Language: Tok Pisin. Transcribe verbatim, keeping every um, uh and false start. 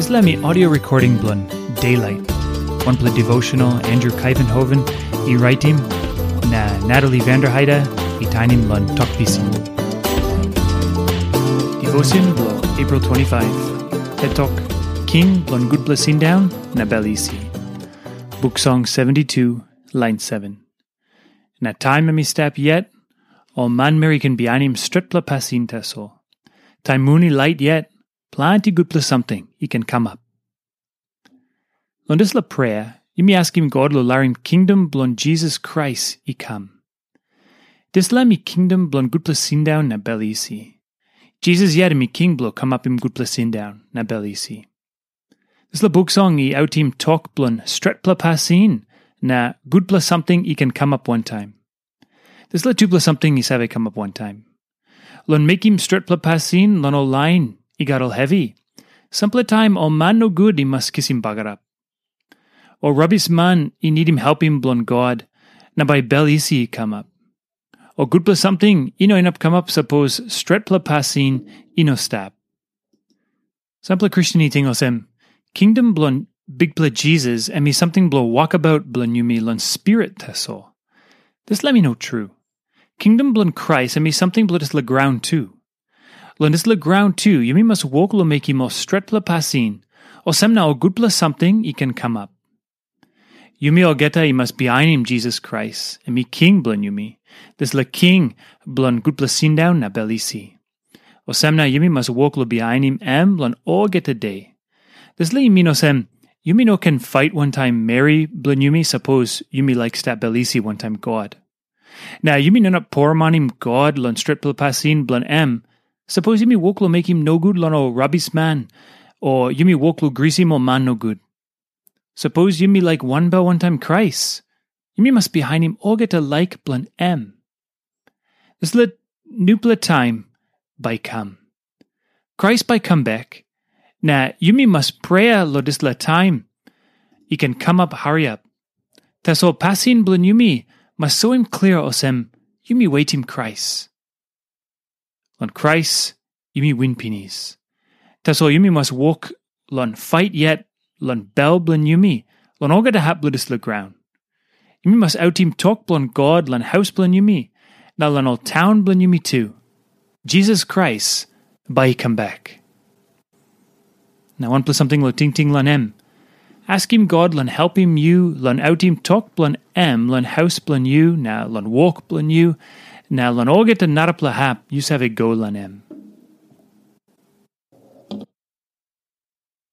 Dispela mi audio recording bilong Daylight, wanpela devotional Andrew Kaivenhoven i raitim, na Natalie Vanderheide i tainim long Tok Pisin. Devotion bilong April twenty-five, Hetok, King bilong Gutpela Sindaun na Bel Isi. Buk Song seventy-two, lain seven. Na taim em i stap yet, ol manmeri i ken bihainim stretpela pasin tasol. Taim mun i lait yet, planti gutpela samting i ken kamap. Long dispela prea, yumi askim God long larim kingdom bilong Jisas Krais i kam. Dispela mi kingdom bilong gutpela sindaun na bel isi. Jisas yet em i king bilong kamapim gutpela sindaun na bel isi. Dispela buk song i autim tok bilong stretpela pasin na gutpela samting i ken kamap wantaim. Dispela tupela samting i save kamap wantaim. Long mekim stretpela pasin long ol lain i gat ol hevi, sampela taim ol man nogut i mas kisim bagarap. Ol rabisman i nidim helpim bilong God, na bai bel isi i kamap. Ol gutpela samting i no inap kamap sapos stretpela pasin i no stap. Sampela Kristen i ting olsem, kingdom bilong Bikpela Jisas em i samting bilong wokabaut bilong yumi long spirit tasol. Dispela mi no tru. Kingdom bilong Krais em i samting bilong dispela graun tu. Long dispela graun tu, yumi mas wok long mekim ol stretpela pasin, olsem na ol gutpela samting i ken kamap. Yumi olgeta i mas bihainim Jisas Krais, em i king bilong yumi, dispela king bilong gutpela sindaun na bel isi. Olsem na yumi mas wok long bihainim em long olgeta de. Dispela i min olsem, yumi no ken fait wantaim meri bilong yumi sapos yumi laik stap bel isi wantaim God. Na yumi no inap poromanim God long stretpela pasin bilong em, sapos yumi wok long mekim nogut long ol rabisman, o yumi wok long grisim ol man nogut. Sapos yumi laik wanbel wantaim Krais, yumi mas bihainim olgeta laik bilong em. Dispela nupela taim bai i kam. Krais bai i kam bek, na yumi mas prea long dispela taim i ken kamap hariap. Tasol pasin bilong yumi mas soim klia olsem yumi wetim Krais. Long Krais yumi win pinis. Tasol yumi mas wok long fait yet long bel bilong yumi, long olgeta hap bilong dispela graun. Yumi mas autim tok bilong God long haus bilong yumi, na long ol taun bilong yumi tu. Jisas Krais bai i kam bek. Na wanpela samting long tingting long em. Askim God long helpim yu long autim tok bilong em long haus bilong yu, na long wok bilong yu, na long olgeta narapela hap yu save go long em.